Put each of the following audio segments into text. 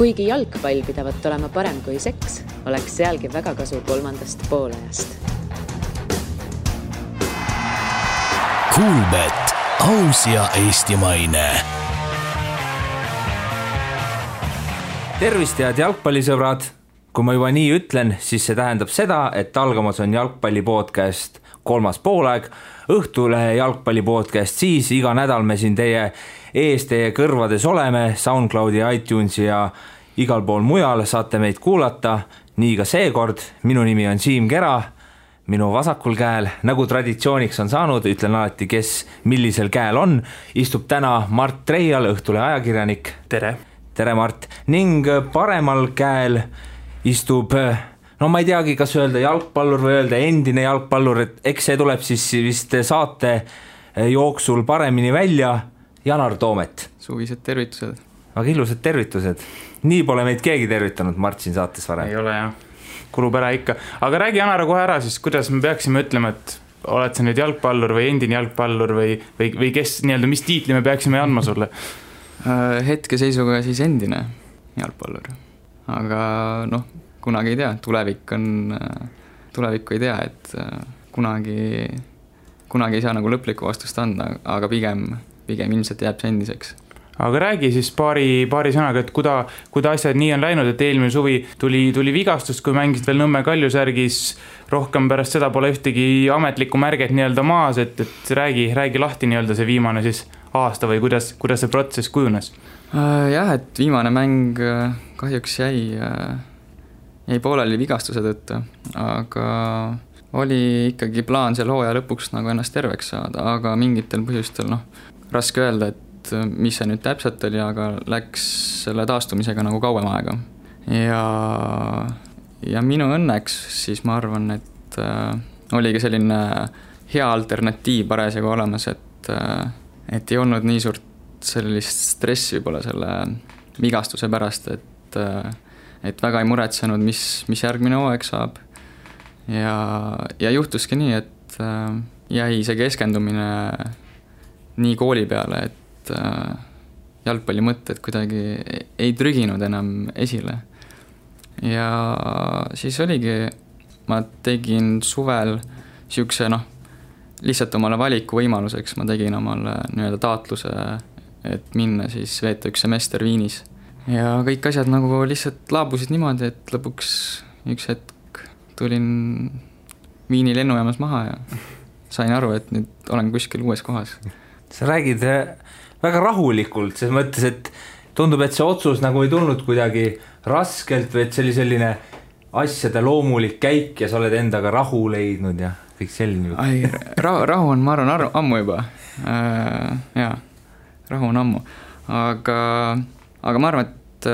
Kuigi jalgpall pidavat olema parem kui seks, oleks sealgi väga kasu 3. poolajast. Kuulbet, aus ja eestimaine. Tervist head jalgpallisõbrad! Kui ma juba nii ütlen, siis see tähendab seda, et algamas on jalgpallipodcast 3. poolaeg, Õhtulehe jalgpallipodcast, siis iga nädal me siin teie ees, teie kõrvades oleme, SoundCloudi, iTunesi ja igal pool mujal saate meid kuulata, nii ka seekord. Minu nimi on Siim Kera, minu vasakul käel, nagu traditsiooniks on saanud, ütlen alati, kes millisel käel on, istub täna Mart Treial, Õhtulehe ajakirjanik. Tere! Tere, Mart! Ning paremal käel istub, no ma ei teagi, kas öelda jalgpallur või öelda endine jalgpallur, et eks see tuleb siis vist saate jooksul paremini välja, Janar Toomet. Suvised tervitused. Aga ilusad tervitused. Nii pole meid keegi tervitanud Mart siin saates varem. Ei ole jah, kulub ära ikka. Aga räägi Janar kohe ära siis, kuidas me peaksime ütlema, et oled sa nüüd jalgpallur või endine jalgpallur või kes, nii-öelda, mis tiitli me peaksime andma sulle? Hetkeseisuga siis endine jalgpallur. Aga noh, kunagi ei tea, tulevikku ei tea, et kunagi ei saa nagu lõplikku vastust anda, aga pigem ilmselt jääb see endiseks. Aga räägi siis paari sõnaga, et kuda asjad nii on läinud, et eelmine suvi tuli vigastust, kui mängisid veel Nõmme Kaljusärgis, rohkem pärast seda pole ühtegi ametlikku märget nii-öelda maas, et räägi lahti nii-öelda see viimane siis aasta või kuidas see protsess kujunes? Jah, et viimane mäng kahjuks jäi pooleli vigastuse tõttu, aga oli ikkagi plaan seal hooaja lõpuks nagu ennast terveks saada, aga mingitel põhjustel, raske öelda, et mis see nüüd täpselt oli, aga läks selle taastumisega nagu kauem aega. Ja minu õnneks siis ma arvan, et oligi selline hea alternatiiv parasjagu olemas, et ei olnud nii suurt sellist stressi võib-olla selle vigastuse pärast, et väga ei muretsenud, mis järgmine hooaeg saab. Ja juhtuski nii, et jäi see keskendumine nii kooli peale, et jalgpalli mõtted kuidagi ei trüginud enam esile. Ja siis oligi, ma tegin suvel siukse, lihtsalt omale valiku võimaluseks, ma tegin omale nii-öelda taatluse, et minna siis veeta üks semester Viinis. Ja kõik asjad nagu lihtsalt laabusid niimoodi, et lõpuks üks hetk tulin Viini lennujaamas maha ja sain aru, et nüüd olen kuskil uues kohas. Sa räägid väga rahulikult, selles mõttes, et tundub, et see otsus nagu ei tulnud kuidagi raskelt või et see oli selline asjade loomulik käik ja sa oled endaga rahu leidnud ja kõik selline. Rahu on, ma arvan, ammu juba. Jaa, rahu on ammu. Aga ma arvan, et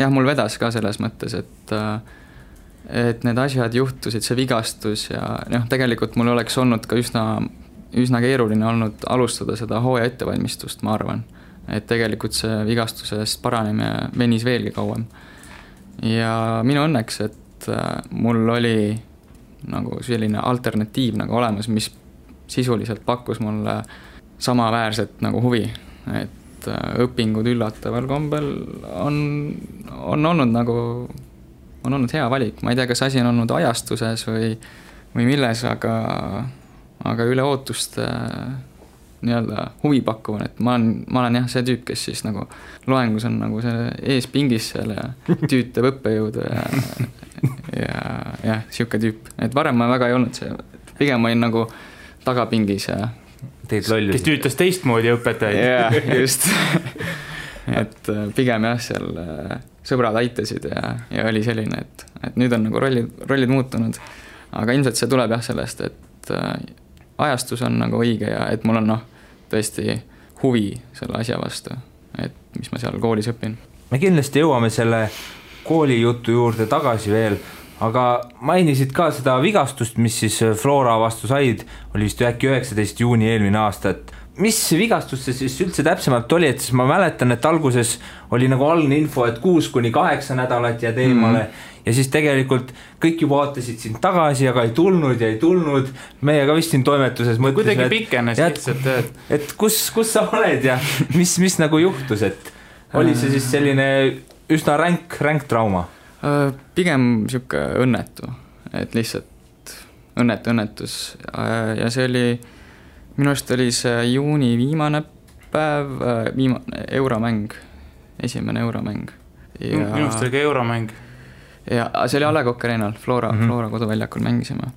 jah, mul vedas ka selles mõttes, et need asjad juhtusid, see vigastus ja tegelikult mul oleks olnud ka üsna keeruline olnud alustada seda hooaja ettevalmistust, ma arvan. Et tegelikult see vigastusest paranemine venis veelgi kauem. Ja minu õnneks, et mul oli nagu selline alternatiiv nagu olemas, mis sisuliselt pakkus mulle samaväärset nagu huvi, et õpingud üllataval kombel on olnud hea valik. Ma ei tea, kas asi on olnud ajastuses või milles, aga üle ootust nii-öelda huvi pakkuvan, et ma olen jah see tüüp, kes siis nagu loengus on nagu see ees pingis seal ja tüütab õppejõudu ja siuke tüüp. Et varem ma väga ei olnud see, pigem ma olin nagu tagapingis ja kes tüütas teistmoodi õpetajaid. Jah, just. Et pigem jah, seal sõbrad aitasid ja oli selline, et nüüd on nagu rollid muutunud. Aga ilmselt see tuleb jah sellest, et ajastus on nagu õige ja et mul on tõesti huvi selle asja vastu, et mis ma seal koolis õpin. Me kindlasti jõuame selle koolijutu juurde tagasi veel, aga mainisid ka seda vigastust, mis siis Flora vastu said, oli vist äkki 19. juuni eelmine aasta, et mis vigastus see siis üldse täpsemalt oli, et siis ma mäletan, et alguses oli nagu algne info, et 6-8 nädalat jääd eemale ja siis tegelikult kõik juba vaatasid sind tagasi, aga ei tulnud. Meie ka vist siin toimetuses mõtlesin, kuidagi pikenes lihtsalt, et kus sa oled ja mis nagu juhtus, et oli see siis selline üsna ränk trauma? Pigem siuke õnnetu, et lihtsalt õnnetus ja see oli, minu arust oli see juuni viimane päev, euromäng, esimene euromäng. Minu arust oli ka euromäng. Ja see oli A. Le Coq Arena'l, Flora koduväljakul mängisime.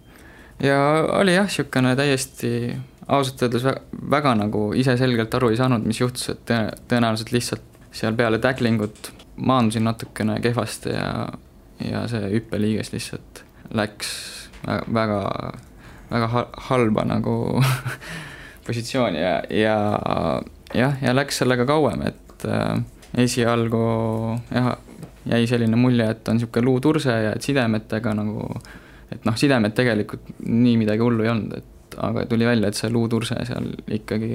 Ja oli jah, siukene täiesti ausalt öeldes väga nagu ise selgelt aru ei saanud, mis juhtus, et tõenäoliselt lihtsalt seal peale tacklingut maandusin natukene kehvasti ja see hüppeliiges lihtsalt läks väga halba nagu positsiooni ja läks sellega kauem, et esialgu jäi selline mulje, et on siuke luuturse ja et sidemetega nagu, et sidemed tegelikult nii midagi hullu ei olnud, aga tuli välja, et see luuturse seal ikkagi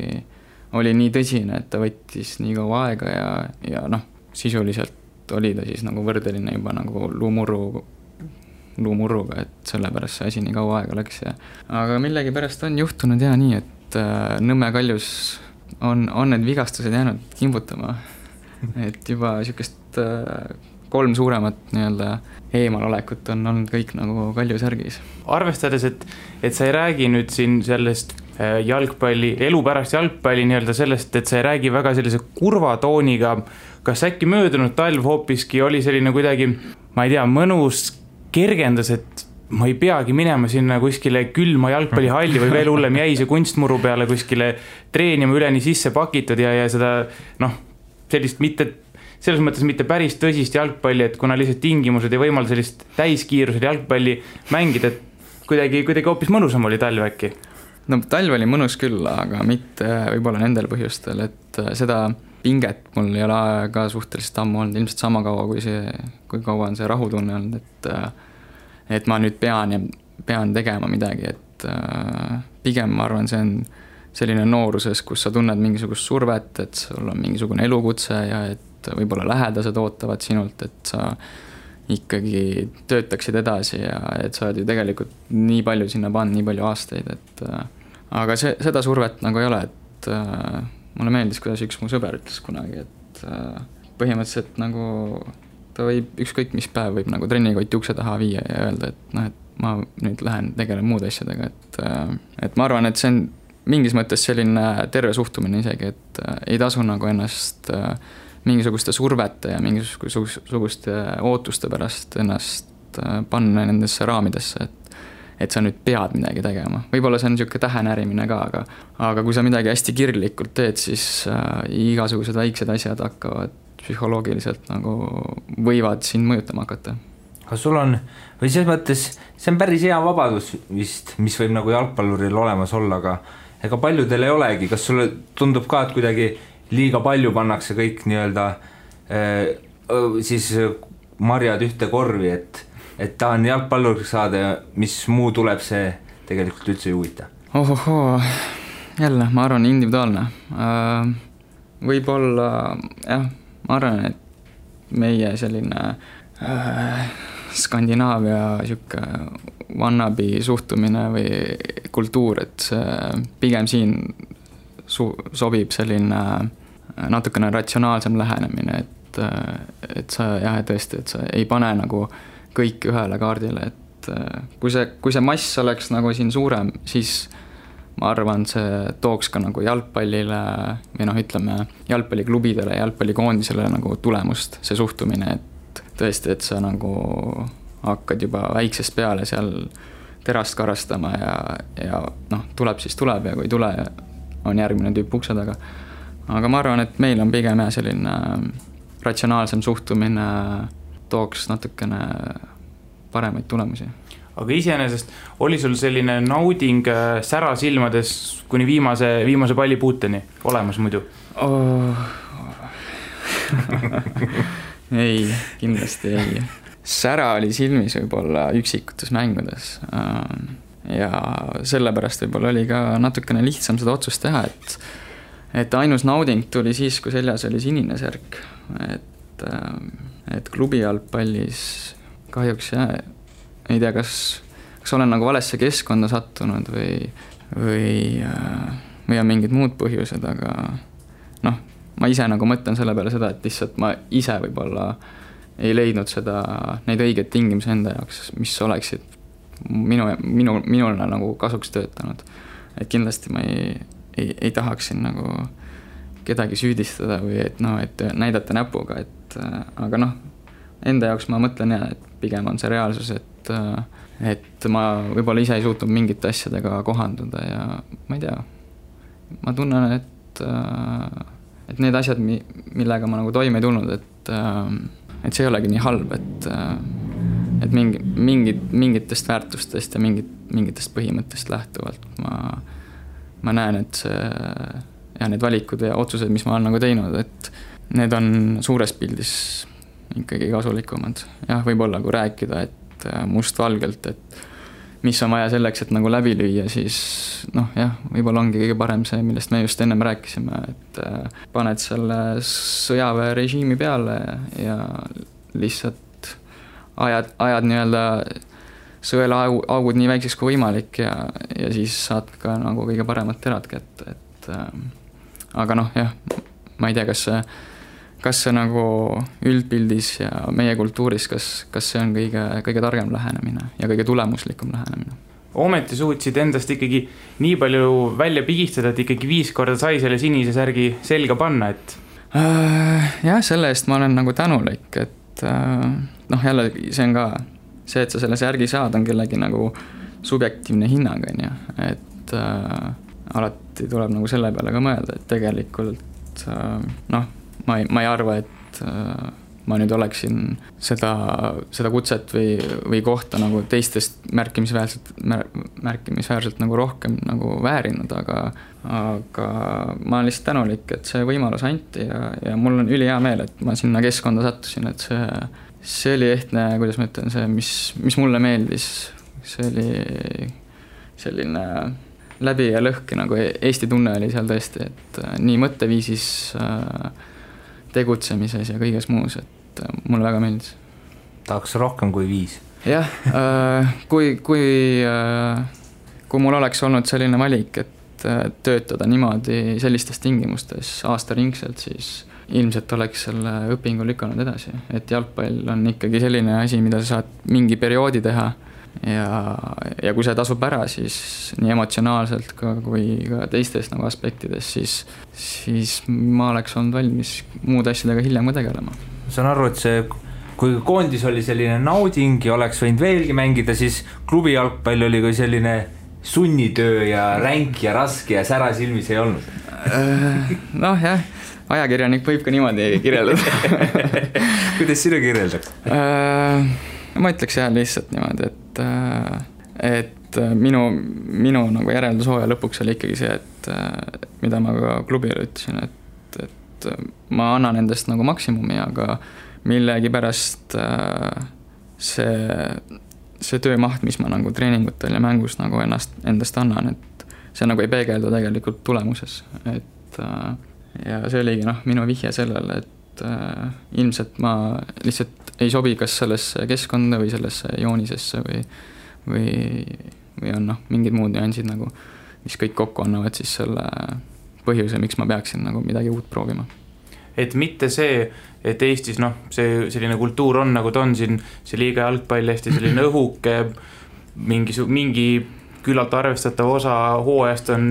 oli nii tõsine, et ta võttis nii kaua aega ja sisuliselt oli ta siis nagu võrdeline juba nagu luumurruga, et sellepärast see asi nii kaua aega läks aga millegi pärast on juhtunud nii, et Nõmme Kaljus on need vigastused jäänud kimbutama, et juba siukest 3 suuremat nii-öelda eemalolekut on olnud kõik nagu Kaljusärgis. Arvestades, et sa ei räägi nüüd siin sellest jalgpalli, elu pärast jalgpalli nii-öelda sellest, et sa ei räägi väga sellise kurva tooniga, kas äkki möödunud talv hoopiski oli selline kuidagi, ma ei tea, mõnus kergendas, et ma ei peagi minema sinna kuskile külma jalgpallihalli või veel hullem jäi see kunstmuru peale kuskile treenima üleni sisse pakitud ja seda sellist selles mõttes mitte päris tõsist jalgpalli, et kuna lihtsalt tingimused ei võimalda sellist täiskiirusel jalgpalli mängida, et kuidagi hoopis mõnusam oli talv äkki? No talv oli mõnus küll, aga mitte võib-olla nendel põhjustel, et seda pinget mul ei ole ka suhteliselt ammu olnud, ilmselt sama kaua kui kaua on see rahutunne olnud, et ma nüüd pean tegema midagi, et pigem ma arvan, see on selline nooruses, kus sa tunned mingisugust survet, et sul on mingisugune elukutse ja et võib-olla lähedased ootavad sinult, et sa ikkagi töötaksid edasi ja et sa oled ju tegelikult nii palju sinna pannud, nii palju aastaid, et aga seda survet nagu ei ole, et mulle meeldis, kuidas üks mu sõber ütles kunagi, et põhimõtteliselt nagu ta võib ükskõik mis päev võib nagu trennikoti ukse taha viia ja öelda, et ma nüüd lähen tegelen muude asjadega, et ma arvan, et see on mingis mõttes selline terve suhtumine isegi, et ei tasu nagu ennast mingisuguste survete ja mingisuguste ootuste pärast ennast panna nendesse raamidesse, et sa nüüd pead midagi tegema. Võib-olla see on niisugune tähenärimine ka, aga kui sa midagi hästi kirglikult teed, siis igasugused väiksed asjad hakkavad psühholoogiliselt nagu võivad sind mõjutama hakata. Aga sul on, või selles mõttes, see on päris hea vabadus vist, mis võib nagu jalgpalluril olemas olla, aga ega paljudel ei olegi. Kas sulle tundub ka, et kuidagi liiga palju pannakse kõik nii-öelda siis marjad ühte korvi, et tahan jalgpalluriks saada ja mis muu tuleb, see tegelikult üldse ei huvita? Ohohoo, jälle, ma arvan, individuaalne. Võib-olla, jah, ma arvan, et meie selline Skandinaavia siuke wannabe suhtumine või kultuur, et pigem siin sobib selline natukene ratsionaalsem lähenemine, et sa jah, tõesti, et sa ei pane nagu kõik ühele kaardile, et kui see mass oleks nagu siin suurem, siis ma arvan, see tooks ka nagu jalgpallile või ütleme jalgpalliklubidele, jalgpallikoondisele nagu tulemust, see suhtumine, et tõesti, et sa nagu hakkad juba väiksest peale seal terast karastama ja tuleb siis tuleb ja kui tule on järgmine tüüp ukse taga. Aga ma arvan, et meil on pigem selline ratsionaalsem suhtumine tooks natukene paremaid tulemusi. Aga iseenesest oli sul selline nauding sära silmades kuni viimase pallipuuteni olemas muidu? Ei, kindlasti ei. Sära oli silmis võib-olla üksikutes mängudes ja sellepärast võib-olla oli ka natukene lihtsam seda otsust teha, et ainus nauding tuli siis, kui seljas oli sinine särk, et klubi jalgpallis kahjuks ei tea, kas olen nagu valesse keskkonda sattunud või on mingid muud põhjused, aga ma ise nagu mõtlen selle peale seda, et lihtsalt ma ise võib-olla ei leidnud neid õigeid tingimusi enda jaoks, mis oleksid minule nagu kasuks töötanud. Et kindlasti ma ei tahaks siin nagu kedagi süüdistada või et näidata näpuga, aga enda jaoks ma mõtlen et pigem on see reaalsus, et ma võib-olla ise ei suutnud mingite asjadega kohanduda ja ma ei tea, ma tunnen, et need asjad, millega ma nagu toime ei tulnud, et see ei olegi nii halb, et mingitest väärtustest ja mingitest põhimõttest lähtuvalt ma näen, et need valikud ja otsused, mis ma olen nagu teinud, et need on suures pildis ikkagi kasulikumad. Jah, võib-olla kui rääkida, et mustvalgelt, et mis on vaja selleks, et nagu läbi lüüa, siis võib-olla ongi kõige parem see, millest me just ennem rääkisime, et paned selle sõjaväerežiimi peale ja lihtsalt ajad nii-öelda sõela augud nii väikseks kui võimalik ja siis saad ka nagu kõige paremat terad kätte, aga ma ei tea, kas see nagu üldpildis ja meie kultuuris, kas see on kõige targem lähenemine ja kõige tulemuslikum lähenemine. Ometi suutsid endast ikkagi nii palju välja pigistada, et ikkagi 5 korda sai selle sinise särgi selga panna, et... Jah, selle eest ma olen nagu tänulik, et jälle see on ka see, et sa selle särgi saad, on kellegi nagu subjektiivne hinnang, et alati tuleb nagu selle peale ka mõelda, et tegelikult ma ei arva, et ma nüüd oleksin seda kutset või kohta nagu teistest märkimisväärselt nagu rohkem nagu väärinud, aga ma olen lihtsalt tänulik, et see võimalus anti ja mul on ülihea meel, et ma sinna keskkonda sattusin, et see oli ehtne, kuidas ma ütlen, see, mis mulle meeldis, see oli selline läbi ja lõhki nagu Eesti tunne oli seal tõesti, et nii mõtteviisis, tegutsemises ja kõiges muus, et mulle väga meeldis. Tahaks rohkem kui 5. Jah, kui mul oleks olnud selline valik, et töötada niimoodi sellistes tingimustes aastaringselt, siis ilmselt oleks selle õpingu lükanud edasi, et jalgpall on ikkagi selline asi, mida sa saad mingi perioodi teha ja kui see tasub ära, siis nii emotsionaalselt kui ka teistes nagu aspektides, siis ma oleks olnud valmis muude asjadega hiljem ka tegelema. Saan aru, et see, kui koondis oli selline nauding ja oleks võinud veelgi mängida, siis klubi jalgpall oli kui selline sunnitöö ja ränk ja raske ja sära silmis ei olnud. Jah, ajakirjanik võib ka niimoodi kirjeldada. Kuidas sinu kirjeldad? Ma ütleks lihtsalt niimoodi, et minu nagu järeldushooaja lõpuks oli ikkagi see, et mida ma ka klubile ütlesin, et ma annan endast nagu maksimumi, aga millegipärast see töömaht, mis ma nagu treeningutel ja mängus nagu endast annan, et see nagu ei peegeldu tegelikult tulemuses, et ja see oligi minu vihje sellele, et ilmselt ma lihtsalt ei sobi kas sellesse keskkonda või sellesse joonisesse või on mingid muud nüansid nagu, mis kõik kokku annavad siis selle põhjuse, miks ma peaksin nagu midagi uut proovima. Et mitte see, et Eestis see selline kultuur on nagu ta on siin, see liiga jalgpall hästi selline õhuke, mingi küllalt arvestatav osa hooajast on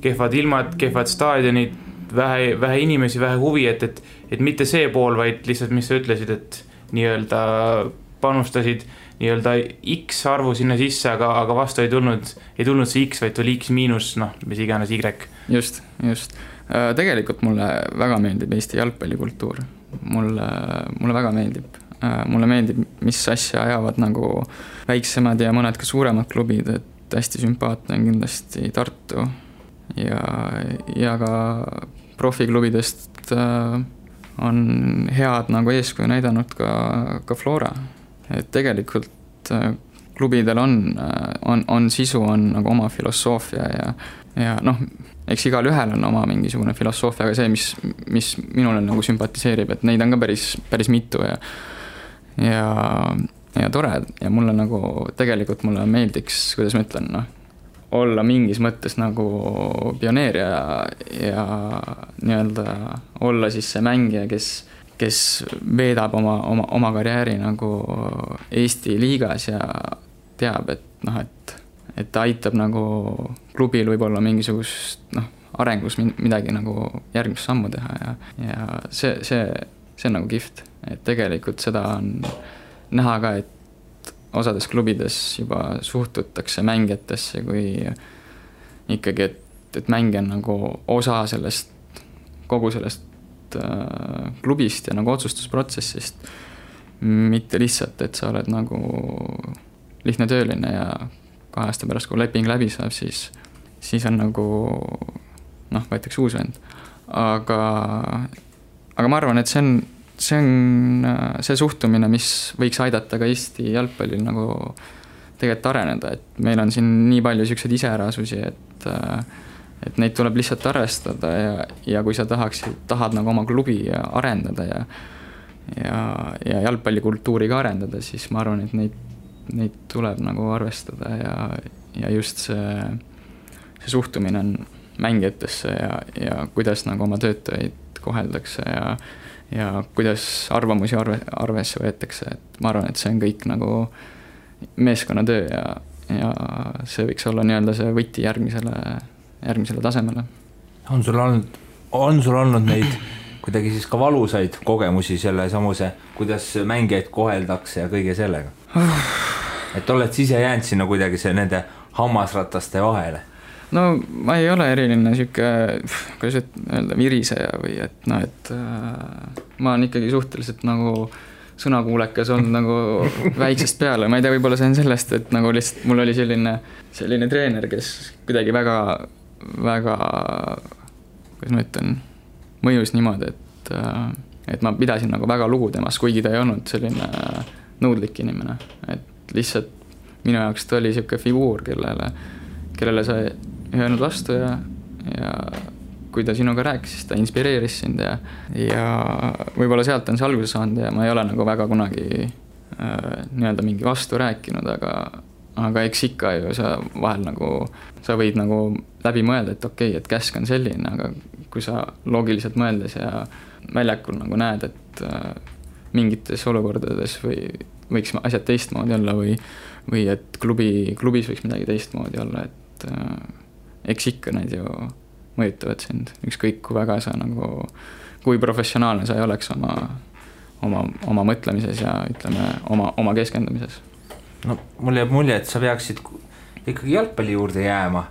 kehvad ilmad, kehvad staadionid, vähe inimesi, vähe huvi, et mitte see pool, vaid lihtsalt, mis sa ütlesid, et nii-öelda panustasid nii-öelda X arvu sinna sisse, aga vastu ei tulnud see X, vaid tuli X miinus, mis iganes Y. Just. Tegelikult mulle väga meeldib Eesti jalgpallikultuur. Mulle väga meeldib. Mulle meeldib, mis asja ajavad nagu väiksemad ja mõned ka suuremad klubid, et hästi sümpaatne on kindlasti Tartu ja ka profiklubidest on head nagu eeskuju näidanud ka Flora. Et tegelikult klubidel on sisu, on nagu oma filosoofia ja eks igal ühel on oma mingisugune filosoofia, aga see, mis minule nagu sümpatiseerib, et neid on ka päris mitu ja tore ja mulle nagu tegelikult mulle meeldiks, kuidas ma ütlen, olla mingis mõttes nagu pioneer ja nii-öelda olla siis see mängija, kes veedab oma karjääri nagu Eesti liigas ja teab, et noh, et ta aitab nagu klubil võib-olla mingisugust arengus midagi nagu järgmist sammu teha ja see on nagu kihvt, et tegelikult seda on näha ka, et osades klubides juba suhtutakse mängijatesse kui ikkagi, et mängija on nagu osa sellest, kogu sellest klubist ja nagu otsustusprotsessist, mitte lihtsalt, et sa oled nagu lihtne tööline ja 2 aasta pärast, kui leping läbi saab, siis on nagu võetakse uus vend. Aga ma arvan, et see on see suhtumine, mis võiks aidata ka Eesti jalgpallil nagu tegelikult areneda, et meil on siin nii palju selliseid iseärasusi, et neid tuleb lihtsalt arvestada ja kui sa tahad nagu oma klubi arendada ja jalgpallikultuuri ka arendada, siis ma arvan, et neid tuleb nagu arvestada ja just see suhtumine on mängijatesse ja kuidas nagu oma töötajaid koheldakse ja kuidas arvamusi arvesse võetakse, et ma arvan, et see on kõik nagu meeskonnatöö ja see võiks olla nii-öelda see võti järgmisele tasemele. On sul olnud neid kuidagi siis ka valusaid kogemusi selle samuse, kuidas mängijaid koheldakse ja kõige sellega? Et oled siis ise jäänud sinna kuidagi nende hammasrataste vahele? No ma ei ole eriline siuke, kuidas öelda, viriseja või et ma olen ikkagi suhteliselt nagu sõnakuulekas olnud nagu väiksest peale, ma ei tea, võib-olla see on sellest, et nagu lihtsalt mul oli selline treener, kes kuidagi väga, kuidas ma ütlen, mõjus niimoodi, et ma pidasin nagu väga lugu temast, kuigi ta ei olnud selline nõudlik inimene, et lihtsalt minu jaoks ta oli siuke figuur, kellele sa ei öelnud vastu ja kui ta sinuga rääkis, siis ta inspireeris sind ja võib-olla sealt on see alguse saanud ja ma ei ole nagu väga kunagi nii-öelda mingi vastu rääkinud, aga eks ikka ju sa vahel nagu, sa võid nagu läbi mõelda, et okei, et käsk on selline, aga kui sa loogiliselt mõeldes ja väljakul nagu näed, et mingites olukordades võiks asjad teistmoodi olla või et klubis võiks midagi teistmoodi olla, et eks ikka need ju mõjutavad sind, ükskõik kui väga sa nagu, kui professionaalne sa ei oleks oma mõtlemises ja ütleme oma keskendumises. No mul jääb mulje, et sa peaksid ikkagi jalgpalli juurde jääma.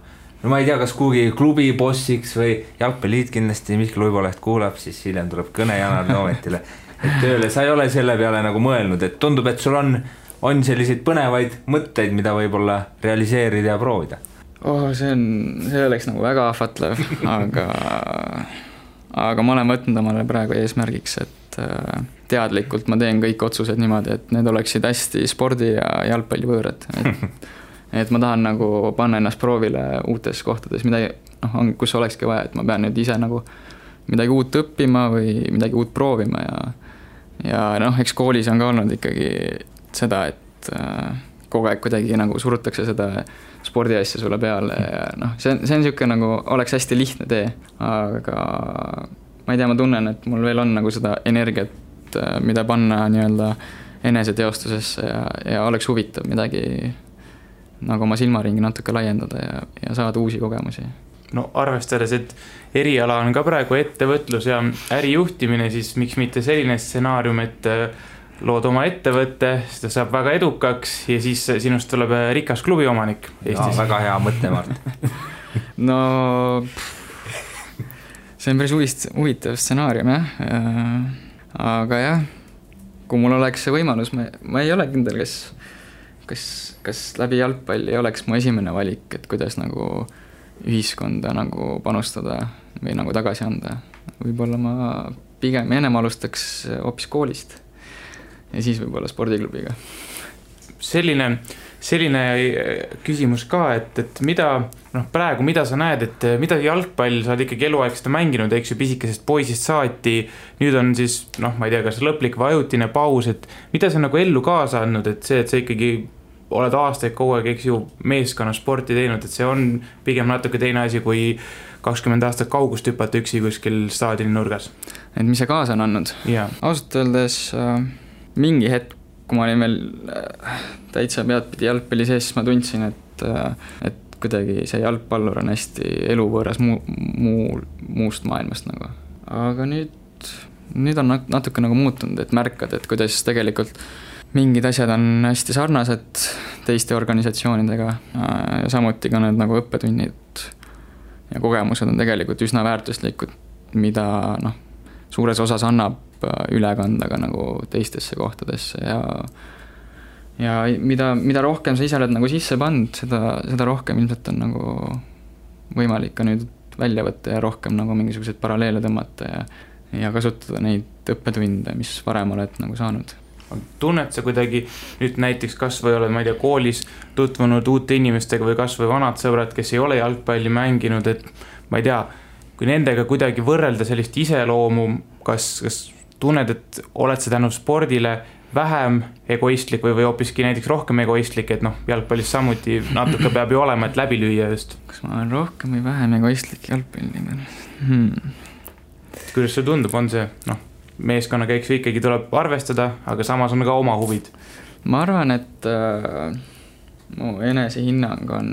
No ma ei tea, kas kuhugi klubi bossiks või jalgpalliit kindlasti Mihkel Uiboleht kuulab, siis hiljem tuleb kõne Janar Toometile, et tööle sa ei ole selle peale nagu mõelnud, et tundub, et sul on selliseid põnevaid mõtteid, mida võib-olla realiseerida ja proovida. See oleks nagu väga ahvatlev, aga ma olen võtnud omale praegu eesmärgiks, et teadlikult ma teen kõik otsused niimoodi, et need oleksid hästi spordi ja jalgpalli võõrad. Et ma tahan nagu panna ennast proovile uutes kohtades, kus olekski vaja, et ma pean nüüd ise nagu midagi uut õppima või midagi uut proovima ja eks koolis on ka olnud ikkagi seda, et kogu aeg kuidagi nagu surutakse seda spordiasja sulle peale ja see on siuke nagu, oleks hästi lihtne tee, aga ma ei tea, ma tunnen, et mul veel on nagu seda energiat, mida panna nii-öelda eneseteostusesse ja oleks huvitav midagi nagu oma silmaringi natuke laiendada ja saada uusi kogemusi. No arvestades, et eriala on ka praegu ettevõtlus ja ärijuhtimine, siis miks mitte selline stsenaarium, et lood oma ettevõtte, seda saab väga edukaks ja siis sinust tuleb rikas klubi omanik Eestis. Ja, väga hea mõte, Mart. No see on päris huvitav stsenaarium, aga jah, kui mul oleks see võimalus, ma ei ole kindel, kas läbi jalgpalli oleks mu esimene valik, et kuidas nagu ühiskonda nagu panustada või nagu tagasi anda. Võib-olla ma pigem ennem alustaks hoopis koolist ja siis võib-olla spordiklubiga. Selline küsimus ka, et mida, praegu mida sa näed, et mida jalgpall, sa oled ikkagi eluaeg seda mänginud, eks ju, pisikesest poisist saati, nüüd on siis, ma ei tea, kas lõplik või ajutine paus, et mida sa nagu ellu kaasa andnud, et sa ikkagi oled aastaid kogu aeg, eks ju, meeskonna sporti teinud, et see on pigem natuke teine asi, kui 20 aastat kaugust hüpata üksi kuskil staadioni nurgas. mis see kaasa on andnud. Ausalt öeldes mingi hetk, kui ma olin veel täitsa peadpidi jalgpalli sees, siis ma tundsin, et kuidagi see jalgpallur on hästi eluvõõras muust maailmast nagu. Aga nüüd on natuke nagu muutunud, et märkad, et kuidas tegelikult mingid asjad on hästi sarnased teiste organisatsioonidega ja samuti ka need nagu õppetunnid ja kogemused on tegelikult üsna väärtuslikud, mida suures osas annab üle kanda ka nagu teistesse kohtadesse ja mida rohkem sa ise oled nagu sisse pannud, seda rohkem ilmselt on nagu võimalik ka nüüd välja võtta ja rohkem nagu mingisuguseid paralleele tõmmata ja kasutada neid õppetunde, mis varem oled nagu saanud. Tunned sa kuidagi nüüd näiteks kas või oled, ma ei tea, koolis tutvunud uute inimestega või kas või vanad sõbrad, kes ei ole jalgpalli mänginud, et ma ei tea, kui nendega kuidagi võrrelda sellist iseloomu, kas tunned, et oled sa tänu spordile vähem egoistlik või hoopiski näiteks rohkem egoistlik, et jalgpallis samuti natuke peab ju olema, et läbi lüüa just. Kas ma olen rohkem või vähem egoistlik jalgpalli? Kuidas see tundub, on see, meeskonna käiks ikkagi tuleb arvestada, aga samas on ka oma huvid? Ma arvan, et mu enesehinnang on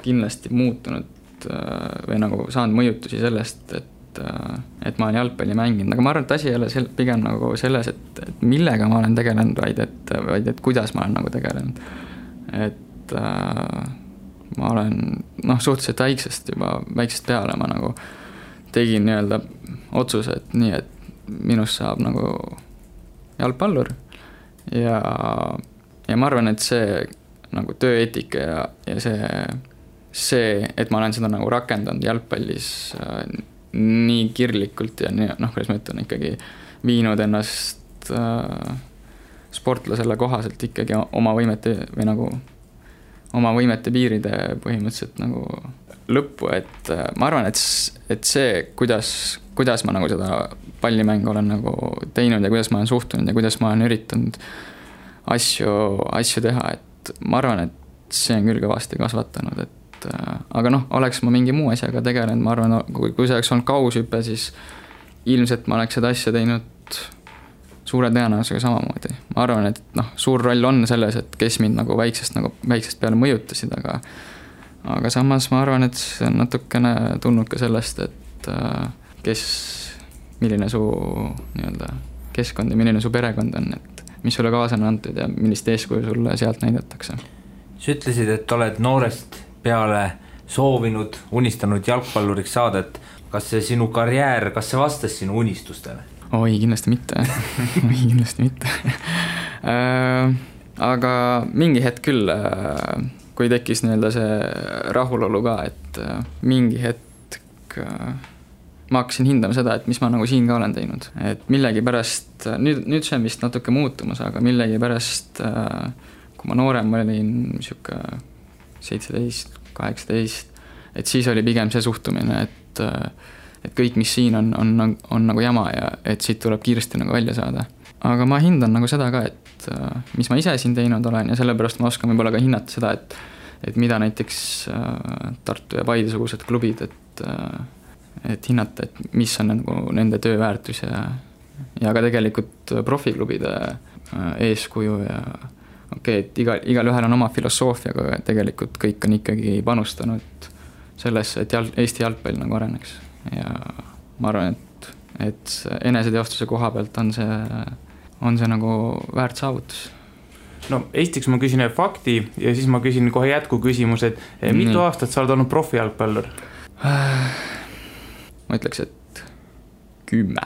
kindlasti muutunud või nagu saanud mõjutusi sellest, et ma olen jalgpalli mänginud, aga ma arvan, et asi ei ole pigem nagu selles, et millega ma olen tegelenud, vaid et kuidas ma olen nagu tegelenud. Et ma olen suhteliselt väiksest peale ma nagu tegin nii-öelda otsuse, et nii, et minust saab nagu jalgpallur ja ma arvan, et see nagu tööeetika ja see, et ma olen seda nagu rakendanud jalgpallis nii kirglikult ja kuidas ma ütlen, ikkagi viinud ennast sportlasele kohaselt ikkagi oma võimete või nagu oma võimete piiride põhimõtteliselt nagu lõppu, et ma arvan, et see, kuidas ma nagu seda pallimängu olen nagu teinud ja kuidas ma olen suhtunud ja kuidas ma olen üritanud asju teha, et ma arvan, et see on küll kõvasti kasvatanud, aga oleks ma mingi muu asjaga tegelenud, ma arvan, kui see oleks olnud kaushüpe, siis ilmselt ma oleks seda asja teinud suure tõenäosusega samamoodi. Ma arvan, et suur roll on selles, et kes mind nagu väiksest peale mõjutasid, aga samas ma arvan, et see on natukene tulnud ka sellest, et milline su nii-öelda keskkond ja milline su perekond on, et mis sulle kaasa on antud ja millist eeskuju sulle sealt näidatakse. Sa ütlesid, et oled noorest peale soovinud, unistanud jalgpalluriks saada, et kas see sinu karjäär, kas see vastas sinu unistustele? Oi, kindlasti mitte. Aga mingi hetk küll, kui tekkis nii-öelda see rahulolu ka, et mingi hetk ma hakkasin hindama seda, et mis ma nagu siin ka olen teinud. Et millegi pärast, nüüd see on vist natuke muutumas, aga millegi pärast, kui ma noorem olin siuke 17, 18, et siis oli pigem see suhtumine, et kõik, mis siin on nagu jama ja et siit tuleb kiiresti nagu välja saada. Aga ma hindan nagu seda ka, et mis ma ise siin teinud olen ja sellepärast ma oskan võib-olla ka hinnata seda, et mida näiteks Tartu ja Paide-sugused klubid, et hinnata, et mis on nagu nende tööväärtus ja ka tegelikult profiklubide eeskuju ja et igal ühel on oma filosoofia, aga tegelikult kõik on ikkagi panustanud sellesse, et Eesti jalgpall nagu areneks. Ja ma arvan, et eneseteostuse koha pealt on see nagu väärt saavutus. Esiteks ma küsin fakti ja siis ma küsin kohe jätku küsimus, et mitu aastat sa oled olnud profijalgpallur? Ma ütleks, et 10.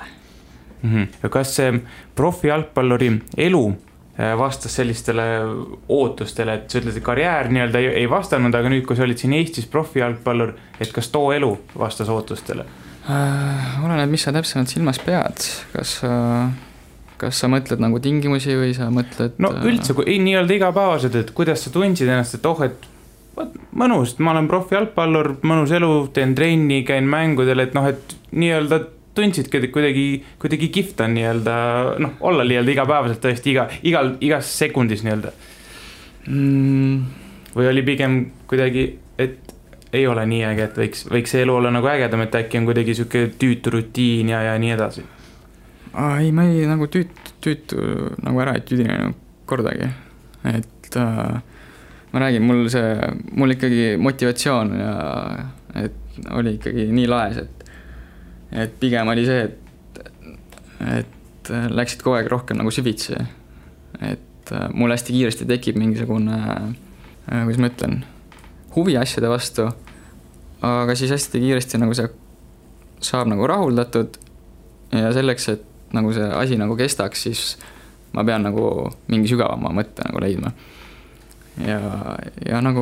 Ja kas see profijalgpalluri elu vastas sellistele ootustele, et sa ütled, et karjäär nii-öelda ei vastanud, aga nüüd, kui sa olid siin Eestis profijalgpallur, et kas too elu vastas ootustele? Oleneb, mis sa täpsemalt silmas pead. Kas sa mõtled nagu tingimusi või sa mõtled... Üldse, nii-öelda igapäevased, et kuidas sa tundsid ennast, et et mõnus, ma olen profijalgpallur, mõnus elu, teen trenni, käin mängudel, et nii-öelda tundsidki kuidagi kihvt on nii-öelda, olla nii-öelda igapäevaselt tõesti igas sekundis nii-öelda. Või oli pigem kuidagi, et ei ole nii äge, et võiks see elu olla nagu ägedam, et äkki on kuidagi siuke tüütu rutiin ja nii edasi? Ei, ma ei nagu tüütu nagu ära ei tüdinenud kordagi, et ma räägin, mul ikkagi motivatsioon ja et oli ikkagi nii laes, et pigem oli see, et läksid kogu aeg rohkem nagu süvitsi, et mul hästi kiiresti tekib mingisugune, kuidas ma ütlen, huvi asjade vastu, aga siis hästi kiiresti nagu see saab nagu rahuldatud ja selleks, et nagu see asi nagu kestaks, siis ma pean nagu mingi sügavama mõtte nagu leidma. Ja nagu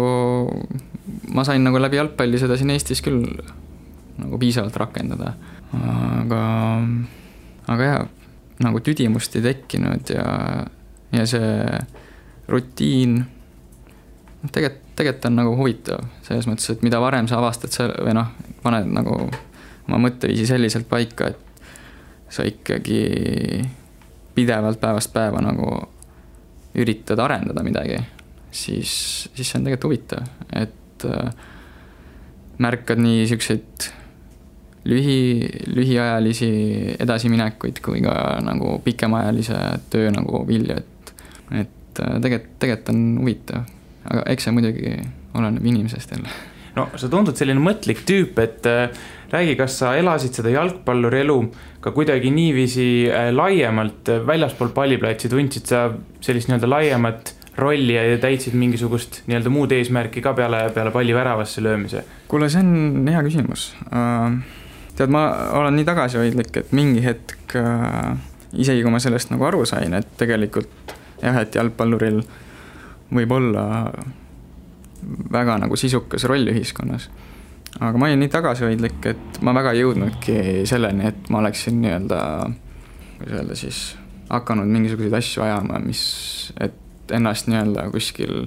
ma sain nagu läbi jalgpalli seda siin Eestis küll nagu piisavalt rakendada. Aga jah, nagu tüdimust ei tekkinud ja see rutiin tegelikult on nagu huvitav selles mõttes, et mida varem sa avastad või noh, paned nagu oma mõtteviisi selliselt paika, et sa ikkagi pidevalt päevast päeva nagu üritad arendada midagi, siis see on tegelikult huvitav, et märkad nii siukseid lühiajalisi edasiminekuid kui ka nagu pikemaajalise töö nagu vilju, et tegelikult on huvitav, aga eks see muidugi oleneb inimesest jälle. No sa tundud selline mõtlik tüüp, et räägi, kas sa elasid seda jalgpalluri elu ka kuidagi niiviisi laiemalt väljaspool palliplatsi, tundsid sa sellist nii-öelda laiemat rolli ja täitsid mingisugust nii-öelda muud eesmärki ka peale palli väravasse löömise? Kuule, see on hea küsimus. Tead, ma olen nii tagasihoidlik, et mingi hetk isegi kui ma sellest nagu aru sain, et tegelikult jah, et jalgpalluril võib olla väga nagu sisukas roll ühiskonnas. Aga ma olin nii tagasihoidlik, et ma väga jõudnudki selleni, et ma oleksin nii-öelda, kuidas öelda siis, hakanud mingisuguseid asju ajama, et ennast nii-öelda kuskil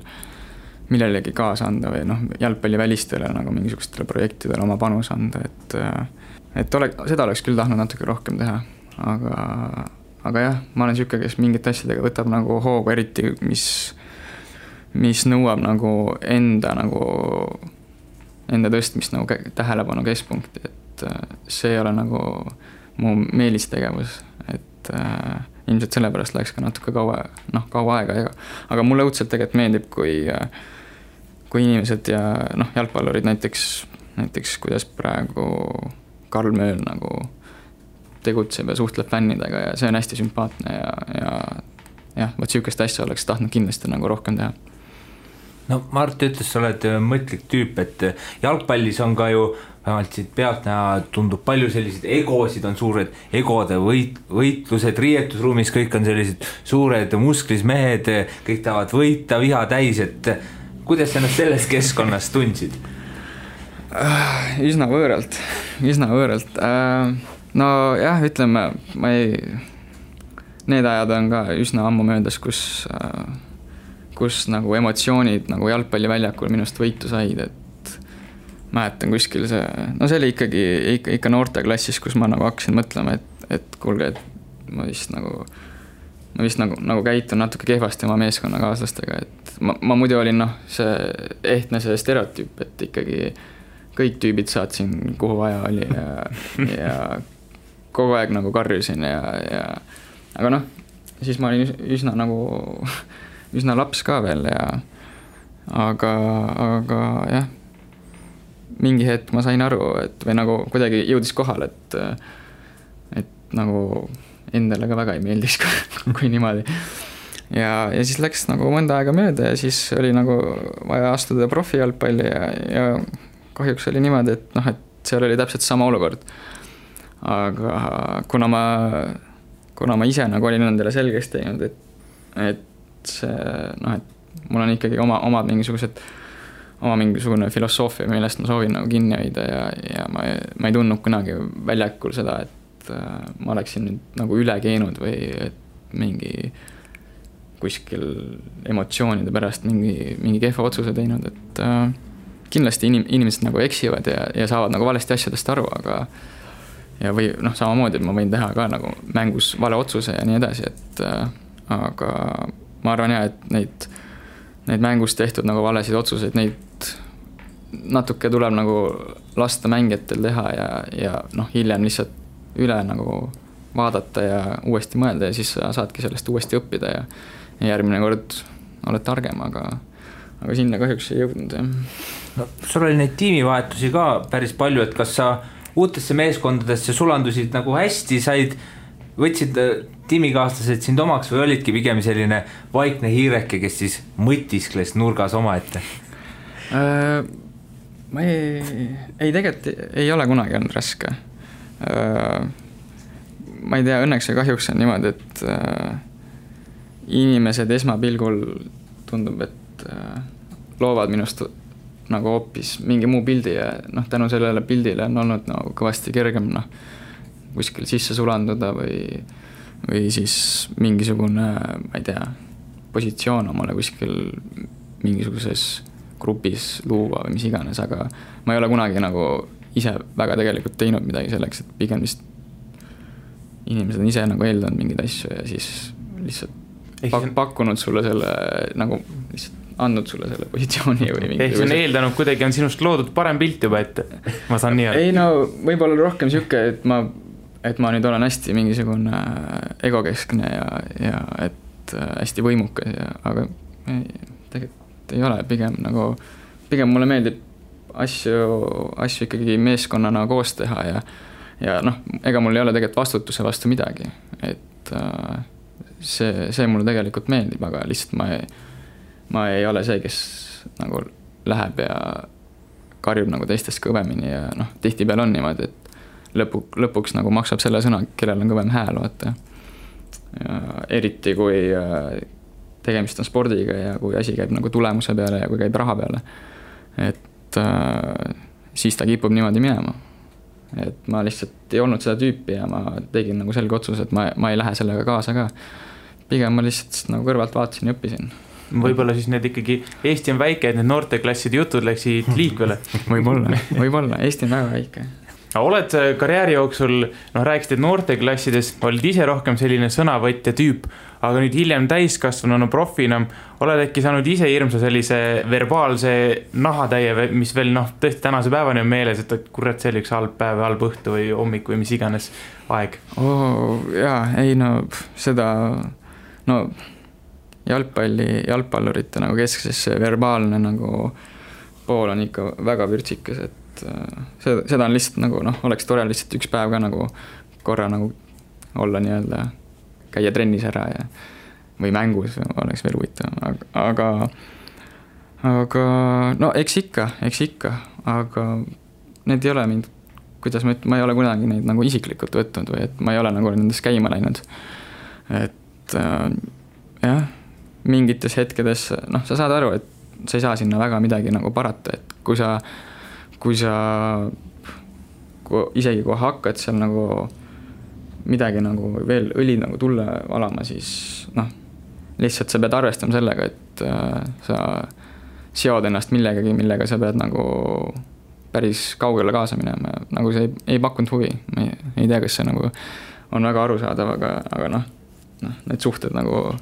millelegi kaasa anda või noh, jalgpalli välistele nagu mingisugustele projektidele oma panus anda, seda oleks küll tahtnud natuke rohkem teha, aga jah, ma olen siuke, kes mingite asjadega võtab nagu hoogu, eriti mis nõuab nagu enda tõstmist nagu tähelepanu keskpunkti, et see ei ole nagu mu meelistegevus, et ilmselt sellepärast läks ka natuke kaua aega, aga mulle õudselt tegelikult meeldib, kui inimesed ja jalgpallurid näiteks kuidas praegu Karl Mööl nagu tegutseb ja suhtleb fännidega ja see on hästi sümpaatne ja võt siukest asja oleks tahtnud kindlasti nagu rohkem teha. No Mart ütles, sa oled mõtlik tüüp, et jalgpallis on ka ju vähemalt siit pealt näha, tundub palju selliseid egosid, on suured egode võitlused, riietusruumis kõik on sellised suured musklis mehed, kõik tahavad võita, viha täis, et kuidas sa ennast selles keskkonnas tundsid? Üsna võõralt. No jah, ütleme, need ajad on ka üsna ammu möödas, kus nagu emotsioonid nagu jalgpalliväljakul minust võitu said, et mäletan kuskil see oli ikka noorteklassis, kus ma nagu hakkasin mõtlema, et kuulge, et ma vist nagu käitun natuke kehvasti oma meeskonnakaaslastega, et ma muidu olin see ehtne see stereotüüp, et ikkagi kõik tüübid saatsin kuhu vaja oli ja kogu aeg nagu karjusin aga siis ma olin üsna laps ka veel aga jah, mingi hetk ma sain aru, või nagu kuidagi jõudis kohal, et nagu endale ka väga ei meeldis, kui niimoodi. Ja siis läks nagu mõnda aega mööda ja siis oli nagu vaja astuda profijalgpalli ja kahjuks oli niimoodi, et seal oli täpselt sama olukord. Aga kuna ma ise nagu olin endale selgeks teinud, et see, et mul on ikkagi oma mingisugune filosoofia, millest ma soovin nagu kinni hoida ja ma ei tundnud kunagi väljakul seda, et ma oleksin nüüd nagu üle keenud või et mingi kuskil emotsioonide pärast mingi kehva otsuse teinud, et kindlasti inimesed nagu eksivad ja saavad nagu valesti asjadest aru, või samamoodi, et ma võin teha ka nagu mängus vale otsuse ja nii edasi, aga ma arvan et neid mängus tehtud nagu valesid otsuseid, neid natuke tuleb nagu lasta mängijatel teha ja hiljem lihtsalt üle nagu vaadata ja uuesti mõelda ja siis sa saadki sellest uuesti õppida ja järgmine kord oled targem, aga sinna kahjuks ei jõudnud. No, sul oli neid tiimivahetusi ka päris palju, et kas sa uutesse meeskondadesse sulandusid nagu hästi, võtsid tiimikaaslased sind omaks või olidki pigem selline vaikne hiireke, kes siis mõtiskles nurgas omaette? Ma tegelikult ei ole kunagi olnud raske. Ma ei tea, õnneks ja kahjuks on niimoodi, et inimesed esmapilgul tundub, et loovad minust nagu hoopis mingi muu pildi ja tänu sellele pildile on olnud nagu kõvasti kergem kuskil sisse sulanduda või siis mingisugune, ma ei tea, positsioon omale kuskil mingisuguses grupis luua või mis iganes, aga ma ei ole kunagi nagu ise väga tegelikult teinud midagi selleks, et pigem vist inimesed on ise nagu eeldanud mingeid asju ja siis lihtsalt pakkunud sulle selle nagu lihtsalt andnud sulle selle positsiooni või mingi. Ehk see on eeldanud kuidagi on sinust loodud parem pilt juba, et ma saan nii. Ei no võib-olla rohkem siuke, et ma nüüd olen hästi mingisugune egokeskne ja et hästi võimukas aga tegelikult ei ole, pigem mulle meeldib asju ikkagi meeskonnana koos teha ja ega mul ei ole tegelikult vastutuse vastu midagi, et see mulle tegelikult meeldib, aga lihtsalt ma ei ole see, kes nagu läheb ja karjub nagu teistest kõvemini ja tihtipeale on niimoodi, et lõpuks nagu maksab selle sõna, kellel on kõvem hääl, vaata. Ja eriti kui tegemist on spordiga ja kui asi käib nagu tulemuse peale ja kui käib raha peale, et siis ta kipub niimoodi minema. Et ma lihtsalt ei olnud seda tüüpi ja ma tegin nagu selge otsus, et ma ei lähe sellega kaasa ka. Pigem ma lihtsalt nagu kõrvalt vaatasin ja õppisin. Võib-olla siis need ikkagi, Eesti on väike, et need noorteklasside jutud läksid liikvele. Võib-olla, Eesti on väga väike. Oled karjääri jooksul, rääkisid, et noorteklassides olid ise rohkem selline sõnavõtja tüüp, aga nüüd hiljem täiskasvanu profina oled äkki saanud ise hirmsa sellise verbaalse nahatäie, mis veel tõesti tänase päevani on meeles, et kurat, see oli üks halb päev, halb õhtu või hommik või mis iganes aeg. Seda jalgpallurite nagu keskses verbaalne nagu pool on ikka väga vürtsikas, et seda on lihtsalt nagu oleks tore lihtsalt üks päev ka nagu korra nagu olla nii-öelda käia trennis ära või mängus oleks veel huvitav, aga eks ikka, aga need ei ole mind, kuidas ma ei ole kunagi neid nagu isiklikult võtnud või et ma ei ole nagu nendest käima läinud, et jah, mingites hetkedes, sa saad aru, et sa ei saa sinna väga midagi nagu parata, et kui isegi kui hakkad seal nagu midagi nagu veel õli nagu tulle valama, siis lihtsalt sa pead arvestama sellega, et sa seod ennast millegagi, millega sa pead nagu päris kaugele kaasa minema, nagu see ei pakkunud huvi, ma ei tea, kas see nagu on väga arusaadav, aga need suhted nagu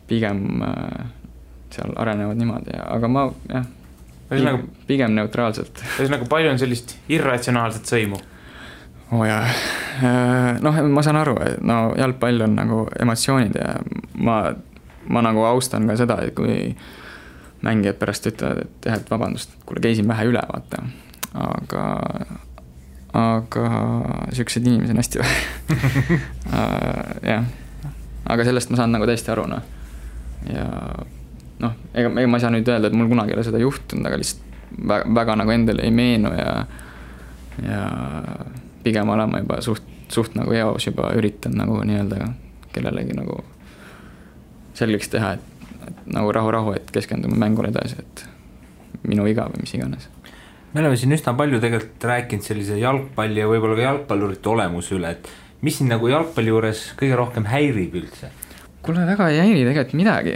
pigem seal arenevad niimoodi, aga ma pigem neutraalselt. Nagu palju on sellist irratsionaalset sõimu? Ma saan aru, et jalgpall on nagu emotsioonid ja ma nagu austan ka seda, et kui mängijad pärast ütlevad, et vabandust, kuule käisin vähe üle, vaata, aga siuksed inimesed on hästi jah, aga sellest ma saan nagu täiesti aru, ja ega ma ei saa nüüd öelda, et mul kunagi ei ole seda juhtunud, aga lihtsalt väga nagu endale ei meenu ja pigem olen ma juba suht nagu eos juba üritan nagu nii-öelda kellelegi nagu selgeks teha, et nagu rahu, et keskendume mängule edasi, et minu viga või mis iganes. Me oleme siin üsna palju tegelikult rääkinud sellise jalgpalli ja võib-olla ka jalgpallurite olemuse üle, et mis siin nagu jalgpalli juures kõige rohkem häirib üldse? Kuule, väga ei häiri tegelikult midagi.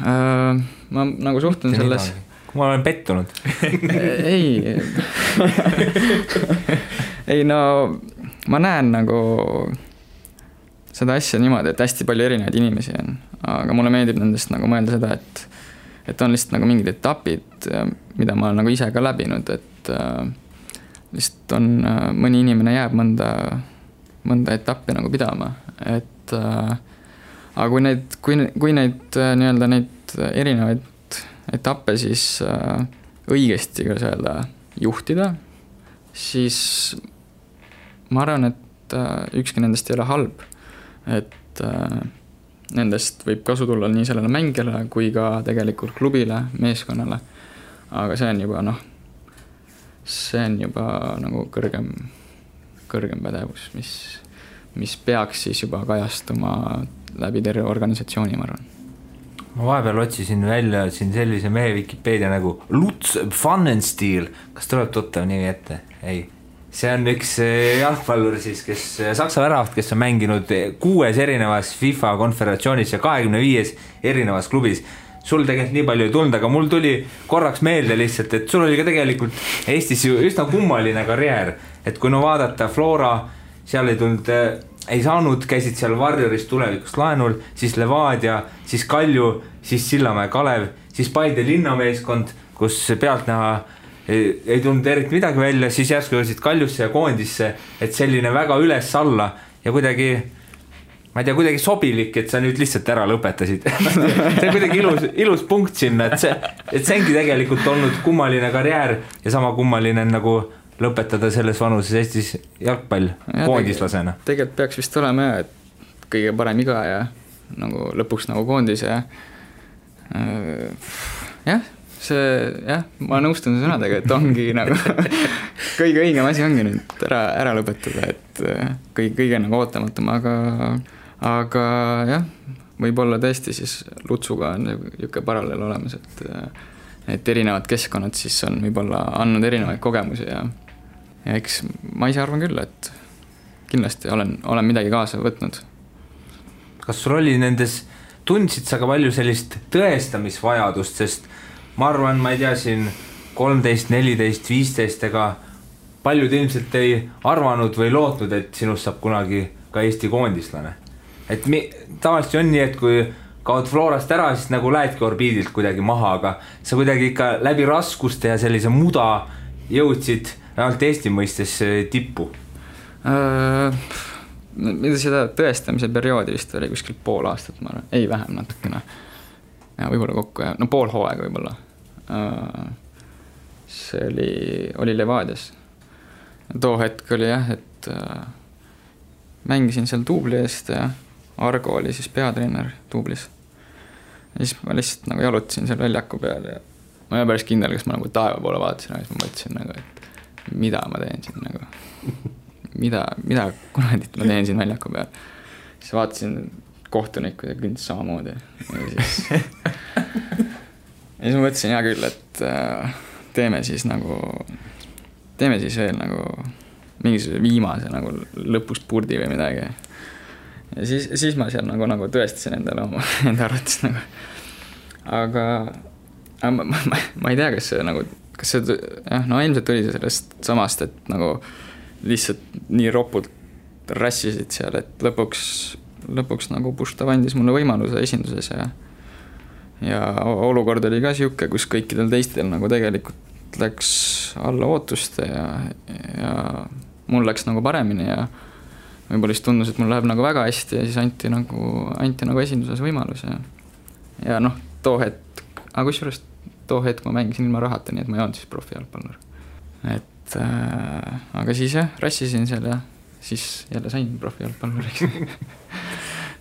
Ma nagu suhtun selles... Kui ma olen pettunud. Ei, ma näen nagu seda asja niimoodi, et hästi palju erinevaid inimesi on, aga mulle meeldib nendest nagu mõelda seda, et on lihtsalt nagu mingid etapid, mida ma olen nagu ise ka läbinud, et lihtsalt on mõni inimene jääb mõnda etappi nagu pidama et aga kui neid nii-öelda neid erinevaid etappe siis õigesti, kuidas öelda, juhtida, siis ma arvan, et ükski nendest ei ole halb, et nendest võib kasu tulla nii sellele mängijale kui ka tegelikult klubile, meeskonnale, aga see on juba nagu kõrgem pädevus, mis peaks siis juba kajastuma läbi terve organisatsiooni, ma arvan. Ma vahepeal otsisin välja siin sellise mehe Wikipedia nagu Lutz Pfannenstiel. Kas tuleb tuttav nimi ette? Ei. See on üks jalgpallur siis, kes Saksa väravat, kes on mänginud 6 erinevas FIFA konföderatsioonis ja 25 erinevas klubis. Sul tegelikult nii palju ei tulnud, aga mul tuli korraks meelde lihtsalt, et sul oli ka tegelikult Eestis ju üsna kummaline karjäär. Et kui vaadata Flora, seal ei saanud, käisid seal Warriorist tulevikust laenul, siis Levadia, siis Kalju, siis Sillamäe Kalev, siis Paide linnameeskond, kus pealtnäha ei tulnud eriti midagi välja, siis järsku jõudsid Kaljusse ja koondisse, et selline väga üles-alla ja kuidagi, ma ei tea, kuidagi sobilik, et sa nüüd lihtsalt ära lõpetasid. See on kuidagi ilus punkt sinna, et see ongi tegelikult olnud kummaline karjäär ja sama kummaline nagu lõpetada selles vanuses Eestis jalgpall koondislasena. Tegelikult peaks vist olema et kõige parem iga ja nagu lõpuks nagu koondis ja ma nõustun sõnadega, et ongi nagu kõige õigem asi ongi nüüd ära lõpetada, et kõige nagu ootamatum, aga jah, võib-olla tõesti siis Lutsuga on niisugune paralleel olemas, et erinevad keskkonnad siis on võib-olla andnud erinevaid kogemusi ja eks ma ise arvan küll, et kindlasti olen midagi kaasa võtnud. Kas sul oli nendes, tundsid sa ka palju sellist tõestamisvajadust, sest ma arvan, ma ei tea siin 13, 14, 15 ega paljud ilmselt ei arvanud või lootnud, et sinust saab kunagi ka Eesti koondislane. Et tavaliselt on nii, et kui kaod Florast ära, siis nagu lähedki orbiidilt kuidagi maha, aga sa kuidagi ikka läbi raskuste ja sellise muda jõudsid ainult Eesti mõistes tippu. Mida seda tõestamise perioodi vist oli kuskil pool aastat, ma arvan, ei vähem natukene. Ja võib-olla kokku, pool hooaega võib-olla. See oli Levadias. Too hetk oli jah, et mängisin seal Tuubli eest ja Argo oli siis peatreener Tuublis. Ja siis ma lihtsalt nagu jalutasin seal väljaku peal ja ma ei ole päris kindel, kas ma nagu taeva poole vaatasin, aga siis ma mõtlesin nagu, et mida ma teen siin nagu, mida kunagit ma teen siin väljaku peal. Siis vaatasin kohtunikku ja künd samamoodi. Ja siis ma mõtlesin hea küll, et teeme siis veel nagu mingisuguse viimase nagu lõpus purdi või midagi. Ja siis ma seal nagu tõestasin endale enda arvates nagu. Aga ma ei tea, kas see ilmselt tuli sellest samast, et nagu lihtsalt nii ropult rassisid seal, et lõpuks nagu Puštav andis mulle võimaluse esinduses ja olukord oli ka siuke, kus kõikidel teistel nagu tegelikult läks alla ootuste ja mul läks nagu paremini ja võib-olla siis tundus, et mul läheb nagu väga hästi ja siis anti nagu esinduses võimalus ja too hetk, aga kusjuures too hetk ma mängisin ilma rahata, nii et ma ei olnud siis profijalgpallur. Et aga siis rassisin seal ja siis jälle sain profijalgpalluriks.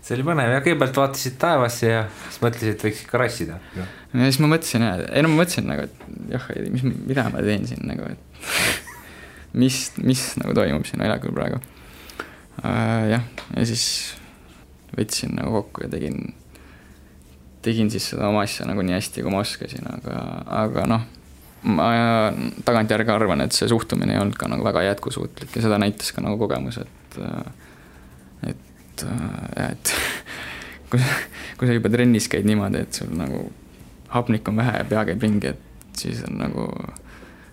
See oli põnev ja kõigepealt vaatasid taevasse ja siis mõtlesid, et võiks ikka rassida. Ja siis ma mõtlesin, ma mõtlesin nagu, et jah, mida ma teen siin nagu, et mis nagu toimub siin väljakul praegu. Ja siis võtsin nagu kokku ja tegin siis seda oma asja nagu nii hästi, kui ma oskasin, aga ma tagantjärgi arvan, et see suhtumine ei olnud ka nagu väga jätkusuutlik ja seda näitas ka nagu kogemus, et kui sa juba trennis käid niimoodi, et sul nagu hapnik on vähe ja pea käib ringi, et siis on nagu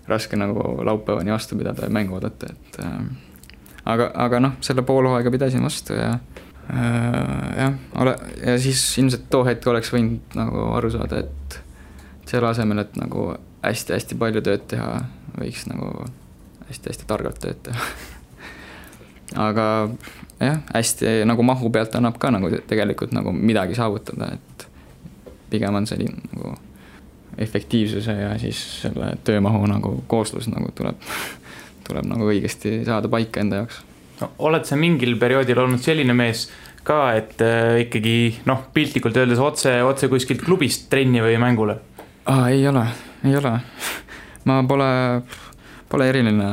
raske nagu laupäevani vastu pidada ja mängu oodata, et aga selle poolhooaega pidasin vastu ja siis ilmselt too hetk oleks võinud nagu aru saada, et selle asemel, et nagu hästi-hästi palju tööd teha, võiks nagu hästi-hästi targalt tööd teha. Aga jah, hästi nagu mahu pealt annab ka nagu tegelikult nagu midagi saavutada, et pigem on selline nagu efektiivsuse ja siis selle töömahu nagu kooslus nagu tuleb nagu õigesti saada paika enda jaoks. No, oled sa mingil perioodil olnud selline mees ka, et ikkagi piltlikult öeldes otse kuskilt klubist trenni või mängule? Ei ole. Ma pole eriline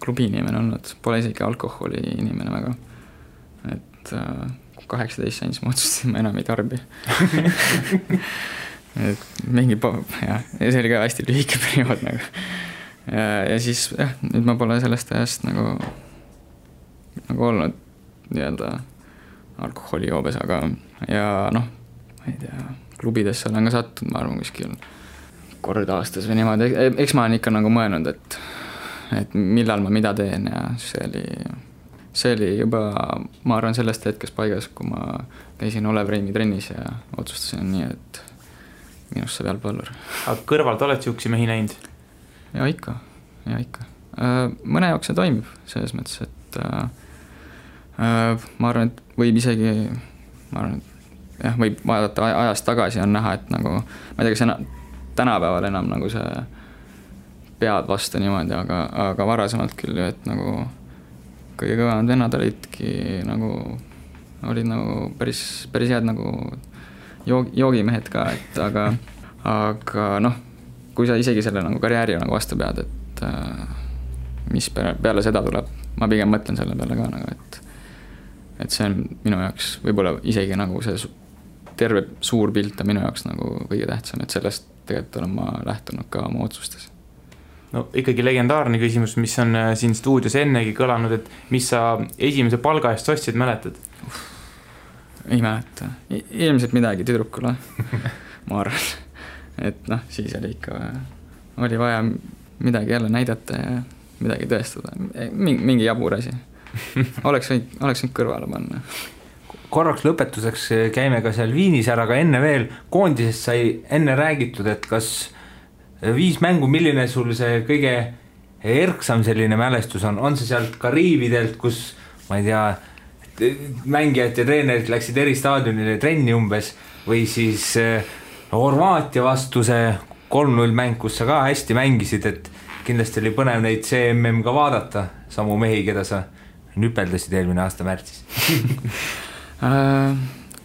klubi inimene olnud, pole isegi alkoholi inimene väga. Et 18 sain, siis ma otsustasin, ma enam ei tarbi. Et mingi, jah, see oli ka hästi lühike periood nagu. Ja siis, jah, nüüd ma pole sellest ajast nagu olnud nii-öelda alkoholijoobes, aga ja ma ei tea, klubidesse olen ka sattunud, ma arvan, kuskil kord aastas või niimoodi, eks ma olen ikka nagu mõelnud, et millal ma mida teen ja see oli juba, ma arvan, sellest hetkest paigas, kui ma käisin Olev Reimi trennis ja otsustasin nii, et minust saab jalgpallur. Aga kõrvalt oled siuksi mehi näinud? Ja ikka. Mõne jaoks see toimib selles mõttes, et ma arvan, et võib isegi, jah, võib vaadata ajast tagasi on näha, et nagu, ma ei tea, kas tänapäeval enam nagu see pead vastu niimoodi, aga varasemalt küll, et nagu kõige kõvemad vennad olidki nagu päris head nagu joogimehed ka, et aga kui sa isegi selle nagu karjääri nagu vastu pead, et mis peale seda tuleb, ma pigem mõtlen selle peale ka nagu, et see on minu jaoks võib-olla isegi nagu see terve suur pilt on minu jaoks nagu kõige tähtsam, et sellest tegelikult olen ma lähtunud ka oma otsustes. No ikkagi legendaarne küsimus, mis on siin stuudios ennegi kõlanud, et mis sa esimese palga eest ostsid, mäletad? Ei mäleta. Ilmselt midagi tüdrukule, ma arvan. Et siis oli vaja midagi jälle näidata ja midagi tõestada. Mingi jabur asi. Oleks võinud kõrvale panna. Korraks lõpetuseks käime ka seal Viinis ära, aga enne veel koondisest sai enne räägitud, et kas 5 mängu, milline sul see kõige erksam selline mälestus on see sealt Kariividelt, kus, ma ei tea, mängijad ja treenerid läksid eri staadionile trenni umbes, või siis Horvaatia vastu see 3-0 mäng, kus sa ka hästi mängisid, et kindlasti oli põnev neid CMM ka vaadata, samu mehi, keda sa nüpeldasid eelmine aasta märtsis.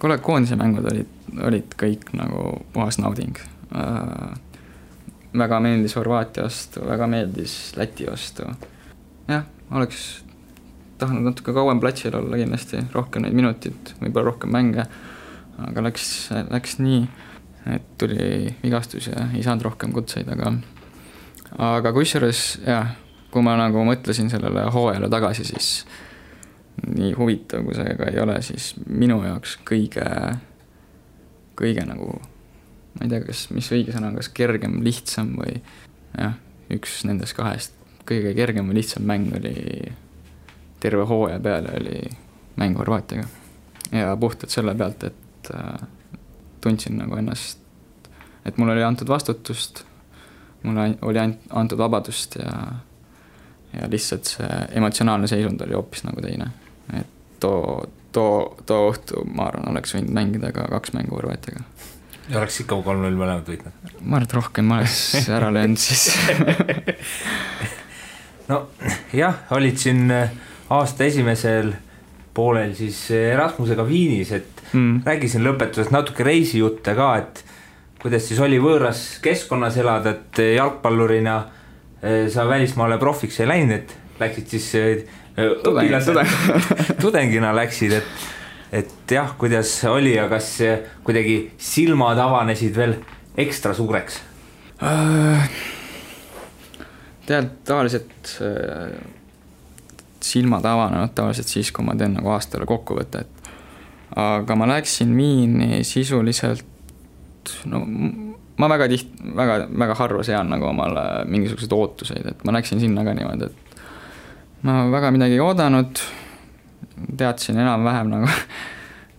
Kuule, koondise mängud olid kõik nagu puhas nauding. Väga meeldis Horvaatia vastu, väga meeldis Läti vastu. Jah, oleks tahtnud natuke kauem platsil olla kindlasti, rohkem neid minutid, võib-olla rohkem mänge, aga läks nii, et tuli vigastus ja ei saanud rohkem kutseid, aga kusjuures, jah, kui ma nagu mõtlesin sellele hooajale tagasi, siis nii huvitav, kui see ka ei ole, siis minu jaoks kõige nagu, ma ei tea, mis õige sõna, kas kergem, lihtsam või jah, üks nendest kahest kõige kergem või lihtsam mäng oli terve hooaja peale oli mäng Horvaatiaga ja puhtalt selle pealt, et tundsin nagu ennast, et mul oli antud vastutust, mulle oli antud vabadust ja lihtsalt see emotsionaalne seisund oli hoopis nagu teine, et too õhtu ma arvan, oleks võinud mängida ka 2 mängu Horvaatiaga. Ja oleks ikka 3-0 mõlemad võitnud? Ma arvan, et rohkem ma oleks ära löönud siis. No jah, olid siin aasta esimesel poolel siis Erasmusega Viinis, et räägisin lõpetusest natuke reisijutte ka, et kuidas siis oli võõras keskkonnas elada, et jalgpallurina sa välismaale profiks ei läinud, et läksid siis tudengina läksid, et jah, kuidas oli ja kas kuidagi silmad avanesid veel ekstra suureks? Tavaliselt silmad avanenud tavaliselt siis, kui ma teen nagu aastale kokkuvõtet. Aga ma läksin Viini sisuliselt, ma väga harva sean nagu omale mingisugused ootuseid, et ma läksin sinna ka niimoodi, et ma väga midagi ei oodanud, teadsin enam-vähem nagu,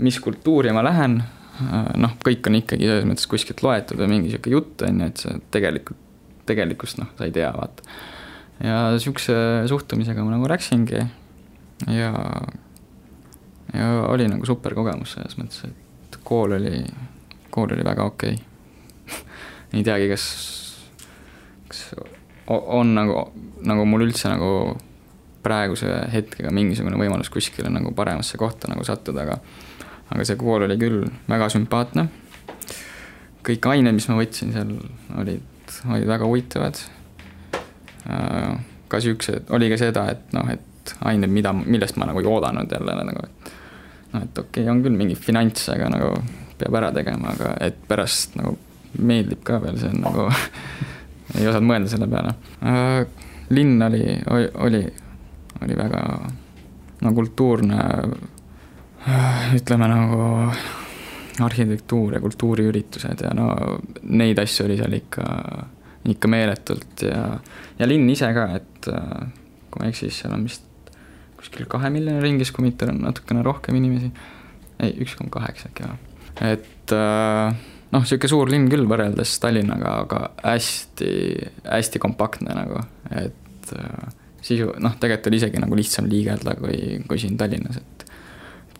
mis kultuuri ma lähen, kõik on ikkagi selles mõttes kuskilt loetud või mingi siuke jutt on, et see tegelikkust sa ei tea, vaata. Ja siukse suhtumisega ma nagu läksingi ja ja oli nagu super kogemus selles mõttes, et kool oli väga okei. Ei teagi, kas on nagu mul üldse nagu praeguse hetkega mingisugune võimalus kuskile nagu paremasse kohta nagu sattuda, aga see kool oli küll väga sümpaatne. Kõik ained, mis ma võtsin seal, olid väga huvitavad. Ka siuksed, oli ka seda, et ained, millest ma nagu ei oodanud jälle nagu, et okei, on küll mingi finants, aga nagu peab ära tegema, aga et pärast nagu meeldib ka veel, see on nagu ei osanud mõelda selle peale. Linn oli väga kultuurne, ütleme nagu arhitektuur ja kultuuriüritused ja neid asju oli seal ikka meeletult ja linn ise ka, et kui ma eksis, seal on vist kuskil 2 miljoni ringis, kui mitte on natukene rohkem inimesi. Ei, 1,8 äkki. Et siuke suur linn küll võrreldes Tallinnaga, aga hästi kompaktne nagu, et sisu, tegelikult oli isegi nagu lihtsam liigelda kui siin Tallinnas, et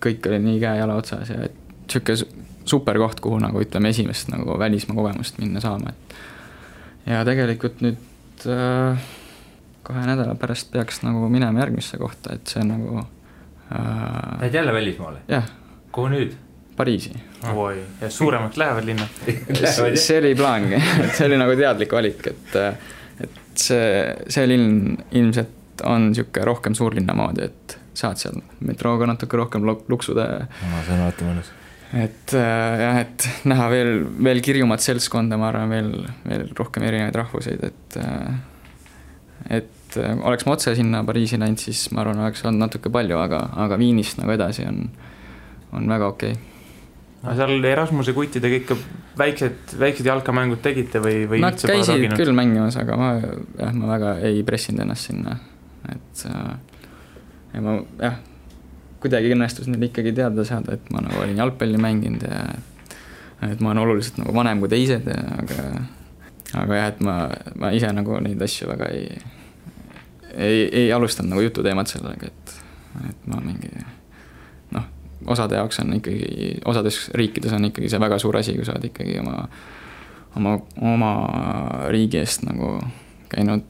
kõik oli nii käe-jala otsas ja et siuke super koht, kuhu nagu ütleme esimest nagu välismaa kogemust minna saama, et ja tegelikult nüüd 2 nädala pärast peaks nagu minema järgmisse kohta, et see nagu Lähed jälle välismaale? Jah. Kuhu nüüd? Pariisi. Oi, ja suuremalt lähevad linna. See oli plaangi, et see oli nagu teadlik valik, et see linn ilmselt on siuke rohkem suurlinna moodi, et saad seal metrooga natuke rohkem luksuda. See on alati mõnus. Et näha veel kirjumat seltskonda, ma arvan, veel rohkem erinevaid rahvuseid, et oleks ma otse sinna Pariisi läinud, siis ma arvan, oleks olnud natuke palju, aga Viinist nagu edasi on väga okei. Seal Erasmuse kuttidega ikka väiksed jalkamängud tegite või Nad käisid küll mängimas, aga ma väga ei pressinud ennast sinna, et ja ma kuidagi õnnestus neil ikkagi teada saada, et ma nagu olin jalgpalli mänginud ja et ma olen oluliselt nagu vanem kui teised, aga et ma ise nagu neid asju väga ei alustanud nagu jututeemad sellega, et ma mingi osade jaoks on ikkagi, osades riikides on ikkagi see väga suur asi, kui sa oled ikkagi oma riigi eest nagu käinud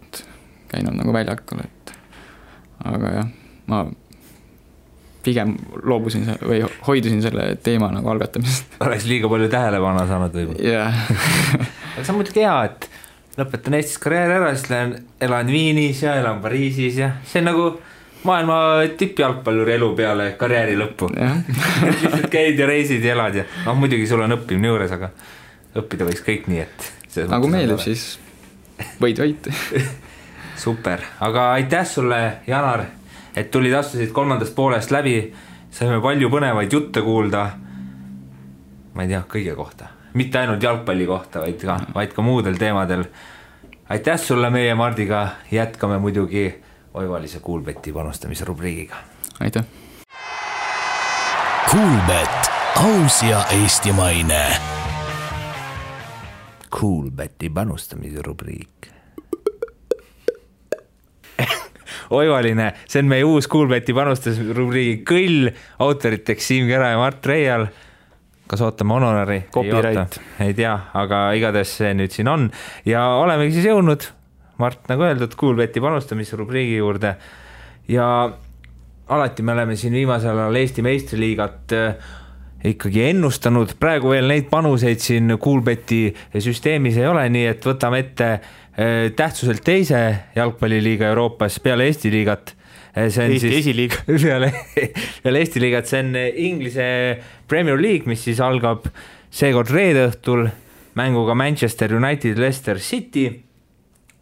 nagu väljakul, et aga jah, ma pigem loobusin või hoidusin selle teema nagu algatamisest. Oleks liiga palju tähelepanu saanud või? Jah. Aga see on muidugi hea, et lõpetan Eestis karjääri ära, siis elan Viinis ja elan Pariisis ja see on nagu maailma tippjalgpalluri elu peale karjääri lõppu. Lihtsalt käid ja reisid ja elad ja muidugi sul on õppimine juures, aga õppida võiks kõik nii, et nagu meeldib, siis võid. Super, aga aitäh sulle, Janar, et tulid astusid 3. poolest läbi, saime palju põnevaid jutte kuulda, ma ei tea, kõige kohta, mitte ainult jalgpalli kohta, vaid ka muudel teemadel. Aitäh sulle, meie Mardiga jätkame muidugi Oivalise Kuulbeti panustamise rubriigiga. Aitäh. Kuulbet, aus ja eestimaine. Kuulbeti panustamise rubriik. Oivaline, see on meie uus Kuulbeti panustamise rubriigi kõll, autoriteks Siim Kera ja Mart Reial. Kas ootame honorari? Copyright. Ei tea, aga igatahes see nüüd siin on ja olemegi siis jõudnud, Mart, nagu öeldud, Kuulbeti panustamise rubriigi juurde ja alati me oleme siin viimasel ajal Eesti meistriliigat ikkagi ennustanud, praegu veel neid panuseid siin Kuulbeti süsteemis ei ole, nii et võtame ette tähtsuselt teise jalgpalliliiga Euroopas peale Eesti liigat. Eesti esiliiga. Peale Eesti liigat, see on Inglise Premier League, mis siis algab seekord reede õhtul mänguga Manchester United, Leicester City.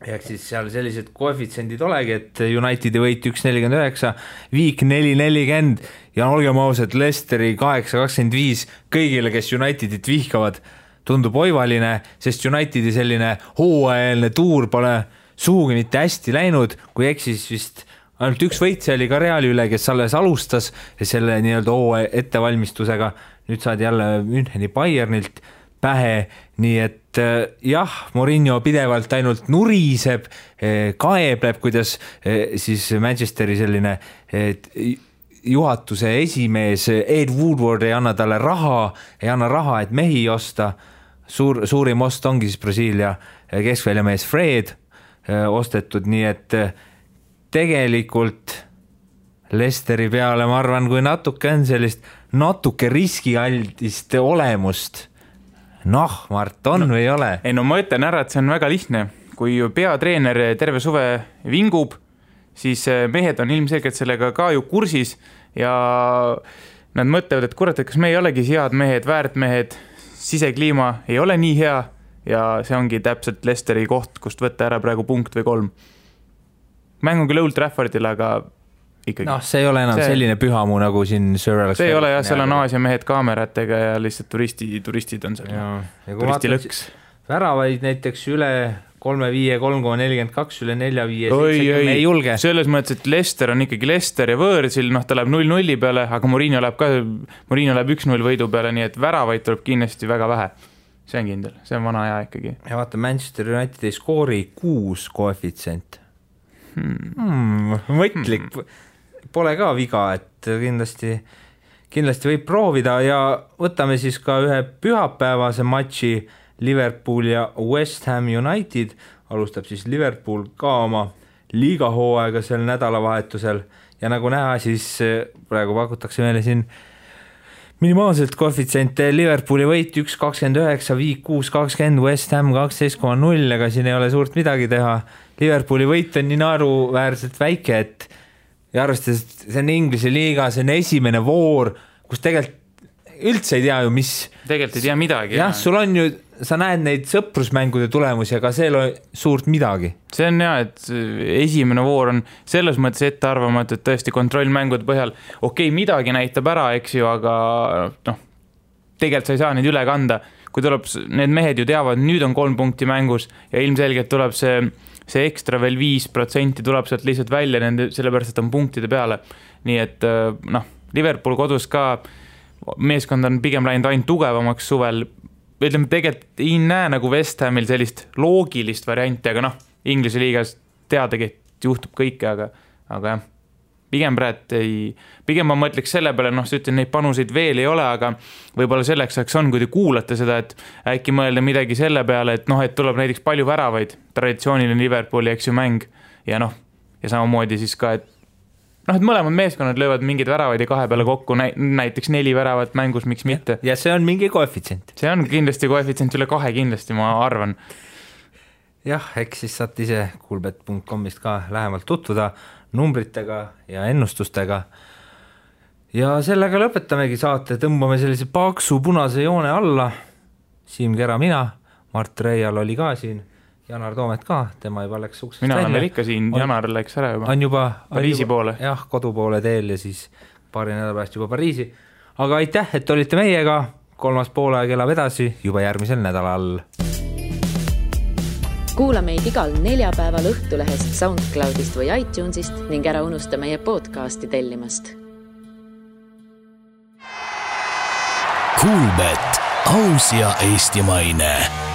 Ehk siis seal sellised koefitsendid olegi, et Unitedi võit 1.49, Viik 4.40 ja olgem ausad, Leicesteri 8.25 kõigile, kes Unitedit vihkavad, tundub oivaline, sest Unitedi selline hooajaline tuur pole suhugi mitte hästi läinud, kui eksis vist ainult üks võitse oli ka Reali üle, kes alles alustas selle nii-öelda hooaja ettevalmistusega, nüüd saad jälle Müncheni Bayernilt pähe, nii et jah, Mourinho pidevalt ainult nuriseb, kaebleb, kuidas siis Manchesteri selline juhatuse esimees Ed Woodward ei anna talle raha, et mehi osta. Suurim ost ongi siis Brasiilia keskväljamees Fred ostetud, nii et tegelikult Leicesteri peale ma arvan, kui natuke on sellist natuke riskialdist olemust. Mart, on või ei ole? Ei, no ma ütlen ära, et see on väga lihtne. Kui peatreener terve suve vingub, siis mehed on ilmselgelt sellega ka ju kursis ja nad mõtlevad, et kurat, et kas me ei olegi head mehed, väärt mehed, sisekliima ei ole nii hea ja see ongi täpselt Leicesteri koht, kust võtta ära praegu punkt või 3. Mäng on küll Old Traffordil, aga ikkagi. See ei ole enam selline pühamu nagu siin Sir Alex. See ei ole jah, seal on Aasia mehed kaameratega ja lihtsalt turistid on seal. Turistilõks. Väravaid näiteks üle 3-5, 3,42, üle 4-5, ei julge. Selles mõttes, et Leicester on ikkagi Leicester ja võõrsil, ta läheb 0-0 peale, aga Mourinho läheb 1-0 võidu peale, nii et väravaid tuleb kindlasti väga vähe. See on kindel, see on vana aja ikkagi. Ja vaata, Manchester United ei skoori 6 koefitsient. Mõtlik. Pole ka viga, et kindlasti võib proovida ja võtame siis ka ühe pühapäevase matši Liverpool ja West Ham United. Alustab siis Liverpool ka oma liigahooaega sel nädalavahetusel ja nagu näha, siis praegu pakutakse meile siin minimaalselt koefitsiente. Liverpooli võit 1.29, Viik 6.20, West Ham 12.0, aga siin ei ole suurt midagi teha. Liverpooli võit on nii naeruväärselt väike, et ja arvestades, see on Inglise liiga, see on esimene voor, kus tegelikult üldse ei tea ju, mis... Tegelikult ei tea midagi. Jah, sul on ju, sa näed neid sõprusmängude tulemusi, aga see ei ole suurt midagi. See on jah, et esimene voor on selles mõttes ette arvamatu, et tõesti kontrollmängude põhjal midagi näitab ära, eks ju, aga tegelikult sa ei saa neid üle kanda. Kui tuleb, need mehed ju teavad, nüüd on 3 punkti mängus ja ilmselgelt tuleb see ekstra veel 5% tuleb sealt lihtsalt välja sellepärast, et on punktide peale. Nii et Liverpool kodus ka meeskond on pigem läinud ainult tugevamaks suvel. Ütleme, tegelikult ei näe nagu West Hamil sellist loogilist varianti, aga Inglise liigas teadagi, et juhtub kõike, aga jah, pigem ma mõtleks selle peale, sa ütlen, neid panuseid veel ei ole, aga võib-olla selleks on, kui te kuulate seda, et äkki mõelda midagi selle peale, et tuleb näiteks palju väravaid, traditsiooniline Liverpooli, eks ju, mäng ja ja samamoodi siis ka, et mõlemad meeskonnad löövad mingeid väravaid ja 2 peale kokku, näiteks 4 väravat mängus, miks mitte. Ja see on mingi koefitsient. See on kindlasti koefitsient üle 2 kindlasti, ma arvan. Jah, eks siis saate ise Coolbet.comist ka lähemalt tutvuda numbritega ja ennustustega. Ja sellega lõpetamegi saate, tõmbame sellise paksu punase joone alla. Siim Kera, mina, Mart Reial oli ka siin, Janar Toomet ka, tema juba läks uksest välja. Mina olen ikka siin, Janar läks ära juba. On juba Pariisi poole. Jah, kodu poole teel ja siis paari nädala pärast juba Pariisi. Aga aitäh, et olite meiega, 3. poolaeg elab edasi juba järgmisel nädalal. Kuula meid igal neljapäeval Õhtulehest, SoundCloudist või iTunesist ning ära unusta meie podcasti tellimast. Coolbet, aus ja eestimaine.